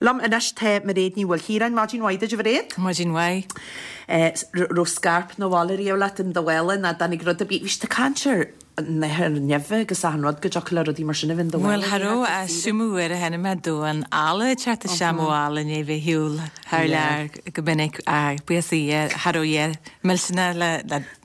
Liom anois tá Mairéad Ní Mhaoilchiaráin. Maidin mhaith duit, a Mhairéad. Maidin mhaith. Raibh scairp 'na bhaile riamh leat in do mhála nó dtáinig rud ar bith? Bhí siad ag caint ar nathair nimhe agus achan rud go dtiocfadh le rudaí mar sin a bheith in do mhála. Bhuel, cha raibh ach seo m'uair a chonaic mé damhán alla ag teacht isteach mo mhála i ndiaidh bheith ar shiúl thar lear go minic ach buíochas le Dia cha raibh a dhath millteanach le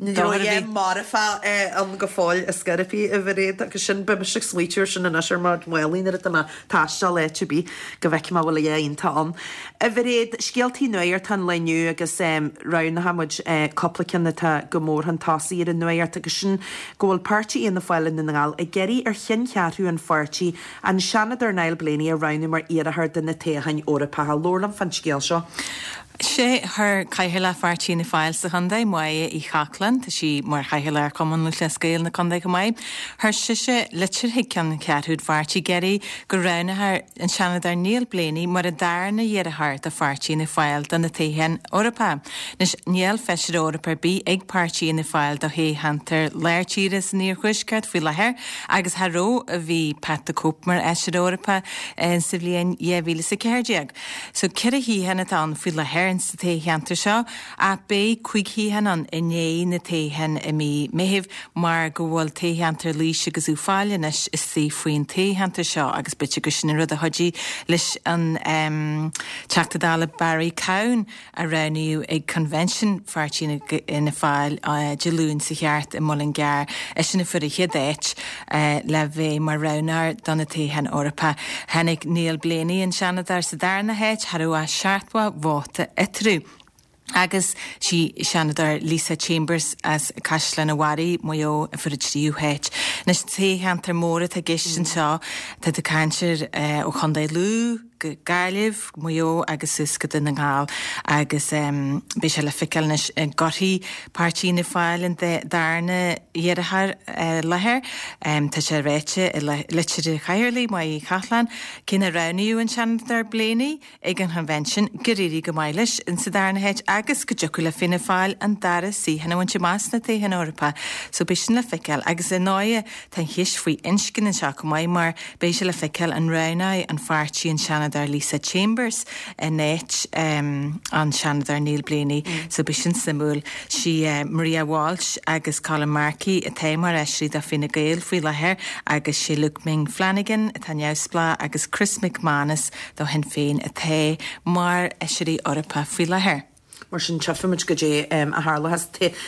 Ní raibh a dhath marfach ann go fóill ar scor ar bith, a Mhairéad, agus sin, beidh mise ag smaoitiú ar sin anois ar mo mhálaí nuair atá mé ag taisteal áit ar bith, go bhfeicfidh mé an bhfuil a dhath iontach ann. A Mhairéad, scéaltaí nuachta an lae inniu agus roghnaigh muid cúpla ceann atá go mór chun tosaigh ar an nuacht agus sin go bhfuil páirtí Fhianna Fáil i nDún na nGall ag iarraidh ar cheanncheathrú an pháirtí an Seanadóir Niall Blaney a roghnú mar iarrthóir do na toghcháin Eorpacha. Labhair liom fán scéal seo. Sé chuir Cathaoirleach Pháirtí Fhianna Fáil sa chontae, Máire Uí Chochláin, tá sí mar Chathaoirleach ar Chumann Lúthchleas Gael na contae chomh maith, chuir sise litir chuig ceanncheathrú an pháirtí ag iarraidh go roghnófar an Seanadóir Niall Blaney mar an darna hiarrthóir do Pháirtí Fhianna Fáil do na toghcháin Eorpacha. Anois, níl Feisire Eorpach ar bith ag Páirtí Fhianna Fáil do thoghcheantar lár tíre san iarthuaisceart faoi láthair agus cha raibh ó bhí Pat the Cope mar Fheisire Eorpach sa bhliain 2014. So, 4 shuíochán atá ann faoi láthair in sa toghcheantar seo, ach beidh 5 shuíochán ann i ndiaidh na toghcháin i mí Meithimh mar go bhfuil toghcheantar Laois agus Uíbh Fhailí anois istigh faoin toghcheantar seo agus b'fhéidir gur sin an rud a chuidigh leis an Teachta Dála Barry Cowen a roghnaíodh ag Convention Pháirtí Fhianna Fáil Dé Luain seo thart i Muileann gCearr, eisean a fuair an chéad áit le bheith mar roghnóir do na toghcháin Eorpacha. Tháinig Niall Blaney, an Seanadóir, sa darna háit, cha raibh ach 70 vóta eatarthu. Agus sí Seanadóir Lisa Chambers as Caisleán an Bharraigh, Maigh Eo, a fuair an tríú háit. Anois, toghcheantar mór atá i gceist anseo, tá tú ag caint ar ó Chontae Lú, go Gaillimh, Maigh Eo agus suas go Dún na nGall agus beidh sé le feiceáil anois an gcuirfidh Páirtí Fhianna Fáil an darna hiarrthóir i láthair. Tá sé ráite i litir an Chathaoirligh, Máire Uí Chochláin, cé nár roghnaíodh an Seanadóir Blaney ag an Chonvention, gur éirigh go maith leis insa darna háit agus go dtiocfadh le Fianna Fáil an dara suíochán a bhaint amach sna toghcháin Eorpacha. So beidh sin le feiceáil agus ar ndóighe tá an cheist faoi inscne anseo chomh maith mar Beidh sé le feiceáil an roghnóidh an pháirtí an Seanadóir Lisa Chambers in áit an Seanadóir Niall Blaney so beidh sin suimiúil. Sí Maria Walsh agus Colin Markey atá mar fheisirí do Fine Gael faoi láthair agus sé Luke Ming Flanagan atá neamhspleách agus Chris McManus do Shinn Féin atá mar fheisirí Eorpacha faoi láthair. Mar sin, tchífimid goidé a tharlóchas.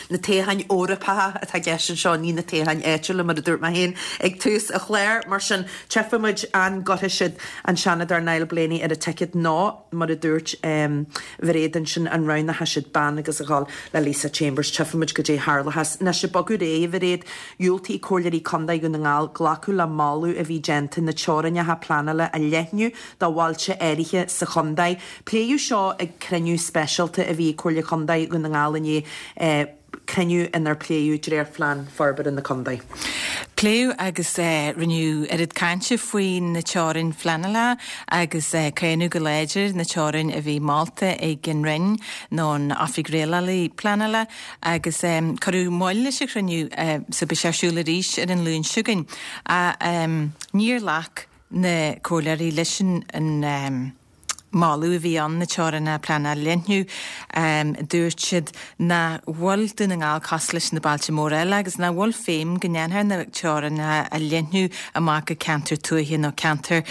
Na toghcháin Eorpacha atá i gceist anseo, ní na toghcháin áitiúla, mar a dúirt mé féin ag tús an chláir. Mar sin, tchífimid an gcuirfidh siad an Seanadóir Niall Blaney ar an ticket nó, mar a dúirt Mhairéad ansin, an roghnóidh siad bean agus a dhul le Lisa Chambers. Tchífimid goidé a tharlóchas. Anois, ag bogadh ar aghaidh, a Mhairéad, dhiúltaigh Comhairleoirí Contae Dhún na nGall glacadh le moladh a bhí déanta na teorainneacha pleanála a leathnú do bhailte áirithe sa chontae. Pléadh seo ag cruinniú speisialta a bhí ag Comhairle Contae Dhún na nGall inné, cruinniú inar pléadh dréachtphlean forbartha na contae. Pléadh agus rinneadh oiread cainte faoi na teorainn phleanála agus cáineadh go láidir na teorainn a bhí molta ag an Roinn nó an Oifig Rialála Pleanála agus cuireadh moill leis an chruinniú so beidh sé ar siúl arís ar an Luan seo chugainn. Níor ghlac na comhairleoirí leis an moladh a bhí ann na teorainneacha pleanála a leathnú. Dúirt siad nach bhfuil Dún na nGall cosúil leis na bailte móra eile agus nach bhfuil feidhm go ndéanfar na teorainneacha a leathnú amach go ceantar tuaithe nó ceantar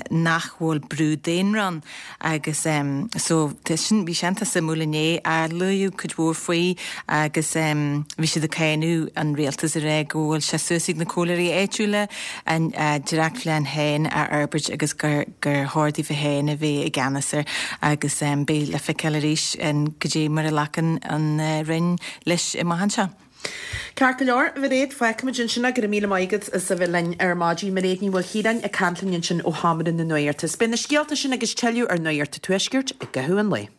nach bhfuil brú daonra ann. Agus so sin, bhí sé iontach suimiúil inné, luadh cuid mhór faoi agus bhí siad ag cáineadh an rialtas ag rá go bhfuil sé suas ag na comhairleoirí áitiúla a ndréachtphlean féin a fhorbairt agus gur chóir daofa féin a bheith i gceannas air agus beidh le feiceáil arís goidé mar a ghlacann an Roinn leis amach anseo. Ceart go leor, a Mhairéad, fágfaimid ansin é. Go raibh míle maith agat as a bheith linn ar maidin. Mairéad Ní Mhaoilchiaráin ag caint linn ansin ó Sheomra na Nuachta. Beidh na scéalta sin agus tuilleadh ar Nuacht an Tuaiscirt i gcaitheamh an lae.